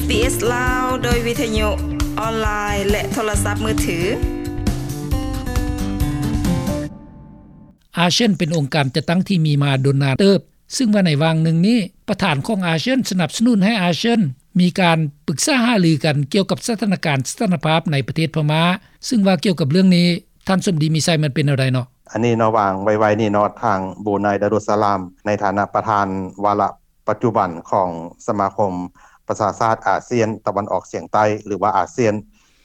ເອສ ລາວ ໂດຍວິທະຍຸອອນລາຍ ແລະ ໂທລະສັບມືຖື. ອາຊຽນເປັນອົງການຈັດຕັ້ງທີ່ມີມາດົນນານເຕີບ, ຊຶ່ງວ່າໃນຫວ່າງໜຶ່ງນີ້ ປະທານຂອງອາຊຽນສະໜັບສະໜູນໃຫ້ອາຊຽນມີການປຶກສາຫາລືກັນກ່ຽວກັບສະຖານະການສະຖານະພາບໃນປະເທດພະມ້າ, ຊຶ່ງວ່າກ່ຽວກັບເລື່ອງນີ້ ທ່ານສົມດີ ມີໄຊ ມັນເປັນແນວໃດເນາະ? ອັນນີ້ເນາະ ຫວ່າງໄວໆນີ້ເນາະ ທາງບຣູໄນ ດາຣຸດສະລາມ ໃນຖານະປະທານວາລະປັດຈຸບັນຂອງສະມາຄົມປະຊາຊາດອາຊຽນຕາເວັນອອກສຽງໃຕ້ ຫຼືວ່າອາຊຽນ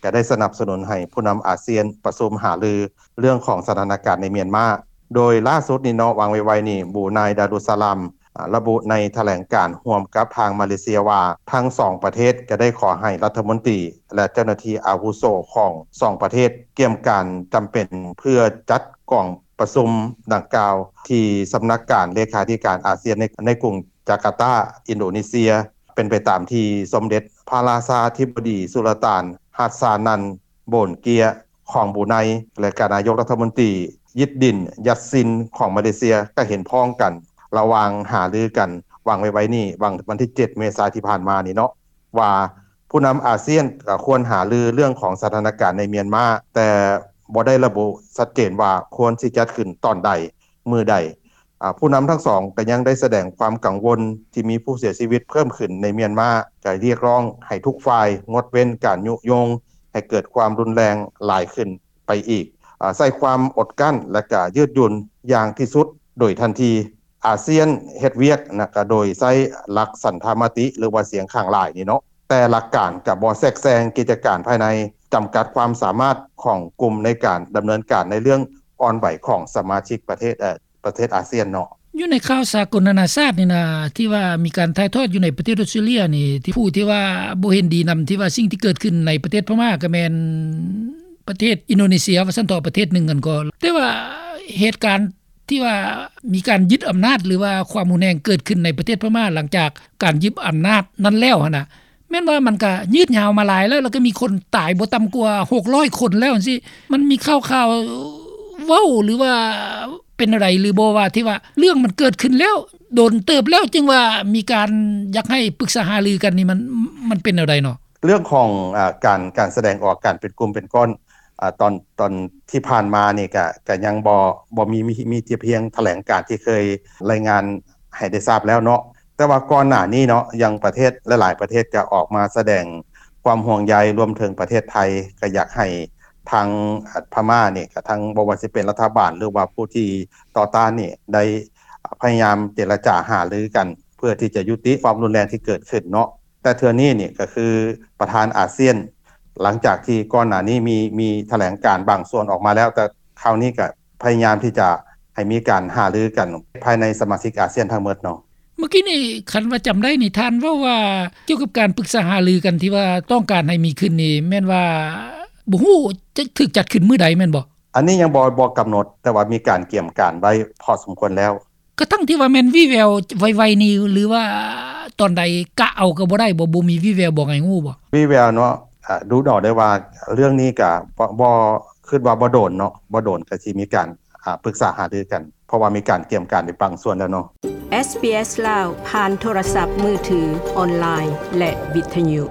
ກະໄດ້ສະໜັບສະໜູນໃຫ້ຜູ້ນຳອາຊຽນປະຊຸມຫາລືເລື່ອງຂອງສະຖານະການໃນມຽນມາ. ໂດຍລ່າສຸດນີ້ເນາະ ຫວ່າງໄວໆນີ້ ບຣູໄນ ດາຣຸດສະລາມ ອາ ລະບຸໃນຖະແຫຼງການຮ່ວມກັບທາງມາເລເຊຍວ່າ ທັງສອງປະເທດກະໄດ້ຂໍໃຫ້ລັດຖະມົນຕີ ແລະ ເຈົ້າໜ້າທີ່ອາວຸໂສຂອງສອງປະເທດ ກຽມການຈຳເປັນເພື່ອຈັດກອງປະຊຸມດັ່ງກ່າວ ທີ່ສຳນັກງານເລຂາທິການອາຊຽນໃນ ໃນກຸງຈາກາຕາ ອິນໂດເນເຊຍ ເປັນໄປຕາມທີ່ສົມເດັດພະລາຊາທິບໍດີສຸລະຕານ ຮັດຊານັນ ໂບນເກຍ ຂອງບຣູໄນ ແລະ ກະນາຍົກລັດຖະມົນຕີ ຢິດດິນ ຢັດຊິນ ຂອງມາເລເຊຍ ກະເຫັນພ້ອງກັນ ລະຫວ່າງຫາລືກັນຫວ່າງໄວໆນີ້ ຫວ່າງວັນທີເຈັດ ເມສາ ທີ່ຜ່ານມານີ້ເນາະ ວ່າຜູ້ນຳອາຊຽນກະຄວນຫາລືເລື່ອງຂອງສະຖານະການໃນມຽນມາ, ແຕ່ບໍ່ໄດ້ລະບຸຊັດເຈນວ່າຄວນຊິຈັດຂຶ້ນຕອນໃດ ມື້ໃດ. ອາ ຜູ້ນຳທັງສອງກະຍັງໄດ້ສະແດງຄວາມກັງວົນທີ່ມີຜູ້ເສຍຊີວິດເພີ່ມຂຶ້ນໃນມຽນມາ, ກະຮຽກຮ້ອງໃຫ້ທຸກຝ່າຍງົດເວັ້ນການຍຸຍົງໃຫ້ເກີດຄວາມຮຸນແຮງຫຼາຍຂຶ້ນໄປອີກ, ອາ ໃຊ້ຄວາມອົດກັ້ນ ແລະ ກະຍືດຫຍຸ່ນຢ່າງທີ່ສຸດໂດຍທັນທີ. ອາຊຽນເຮັດວຽກນະ ກະໂດຍໃຊ້ຫຼັກສັນທະມະຕິ ຫຼືວ່າສຽງຂ້າງຫຼາຍນີ້ເນາະ, ແຕ່ຫຼັກການກະບໍ່ແຊກແຊງກິດຈະການພາຍໃນ, ຈຳກັດຄວາມສາມາດຂອງກຸ່ມໃນການດຳເນີນການໃນເລື່ອງອ່ອນໄຫວຂອງສະມາຊິກປະເທດ ເອີ ປະເທດອາຊຽນເນາະ. ຢູ່ໃນຂ່າວສາກົນນານາຊາດນີ້ນະ ທີ່ວ່າມີການຖ່າຍທອດຢູ່ໃນປະເທດອອສເຕຣເລຍນີ້ ທີ່ຜູ້ທີ່ວ່າບໍ່ເຫັນດີນຳ ທີ່ວ່າສິ່ງທີ່ເກີດຂຶ້ນໃນປະເທດພະມ້າ ກະແມ່ນປະເທດອິນໂດເນເຊຍ ວ່າຊັ້ນເຖາະ ປະເທດໜຶ່ງຫັ້ນກໍ ແຕ່ວ່າເຫດການ ທີ່ວ່າມີການຍຶດອຳນາດ ຫຼືວ່າຄວາມຮຸນແຮງເກີດຂຶ້ນໃນປະເທດພະມ້າ ຫຼັງຈາກການຍຶດອຳນາດນັ້ນແລ້ວຫັ້ນນະ ແມ່ນວ່າມັນກະຍືດຍາວມາຫຼາຍແລ້ວ ແລ້ວກະມີຄົນຕາຍບໍ່ຕ່ຳກວ່າຫົກຮ້ອຍຄົນແລ້ວຈັ່ງຊີ້. ມັນມີຂ່າວໆເວົ້າ ຫຼືວ່າເປັນແນວໃດຫຼືບໍ່ ວ່າທີ່ວ່າເລື່ອງມັນເກີດຂຶ້ນແລ້ວ ດົນເຕີບແລ້ວ ຈຶ່ງວ່າມີການຢາກໃຫ້ປຶກສາຫາລືກັນນີ້ ມັນ ມັນເປັນແນວໃດເນາະ? ເລື່ອງຂອງ ອາ ການ ການສະແດງອອກ ການເປັນກຸ່ມເປັນກ້ອນ ອາ ຕອນ ຕອນທີ່ຜ່ານມານີ້ກະ ກະຍັງບໍ່ ບໍ່ມີ ມີ ມີແຕ່ພຽງຖະແຫຼງການທີ່ເຄີຍລາຍງານໃຫ້ໄດ້ຊາບແລ້ວເນາະ. ແຕ່ວ່າກ່ອນໜ້ານີ້ເນາະ ຢ່າງປະເທດຫຼາຍໆປະເທດກະອອກມາສະແດງຄວາມຫ່ວງໃຍ, ລວມເຖິງປະເທດໄທ ກະຢາກໃຫ້ທາງ ອາ ພະມ້ານີ້ ກະທັງ ບໍ່ວ່າຊິເປັນລັດຖະບານ ຫຼືວ່າຜູ້ທີ່ຕໍ່ຕ້ານນີ້ ໄດ້ ອາ ພະຍາຍາມເຈລະຈາຫາລືກັນ ເພື່ອທີ່ຈະຍຸຕິຄວາມຮຸນແຮງທີ່ເກີດຂຶ້ນເນາະ. ແຕ່ເທື່ອນີ້ນີ້ກະຄືປະທານອາຊຽນ ຫຼັງຈາກທີ່ກ່ອນໜ້ານີ້ມີ ມີຖະແຫຼງການບາງສ່ວນອອກມາແລ້ວ, ແຕ່ຄາວນີ້ກະພະຍາຍາມທີ່ຈະໃຫ້ມີການຫາລືກັນພາຍໃນສະມາຊິກອາຊຽນທັງໝົດເນາະ. ເມື່ອກີ້ນີ້ ຄັນວ່າຈຳໄດ້ນີ້ ທ່ານເວົ້າວ່າກ່ຽວກັບການປຶກສາຫາລືກັນທີ່ວ່າຕ້ອງການໃຫ້ມີຂຶ້ນນີ້ ແມ່ນວ່າບໍ່ຮູ້ຈະຖືກຈັດຂຶ້ນມື້ໃດແມ່ນບໍ່? ອັນນີ້ຍັງບໍ່ ບໍ່ກຳນົດ, ແຕ່ວ່າມີການກຽມການໄວ້ພໍສົມຄວນແລ້ວ. ກະທັງທີ່ວ່າແມ່ນວີ່ແວວໄວໆນີ້ ຫຼືວ່າຕອນໃດກະເອົາກະບໍ່ໄດ້ບໍ່? ບໍ່ມີວີ່ແວບອກໃຫ້ຮູ້ບໍ່? ວີ່ແວວເນາະ ອາ ດູເອົາໄດ້ວ່າເລື່ອງນີ້ກະບໍ່ ບໍ່ ຄິດວ່າບໍ່ດົນເນາະ ບໍ່ດົນກະຊິມີການ ອາ ປຶກສາຫາລືກັນ ເພາະວ່າມີການກຽມການໄປບາງສ່ວນແລ້ວເນາະ. ເອສບີເອສ ລາວ ຜ່ານໂທລະສັບມືຖື, ອອນລາຍ ແລະ ວິທະຍຸ.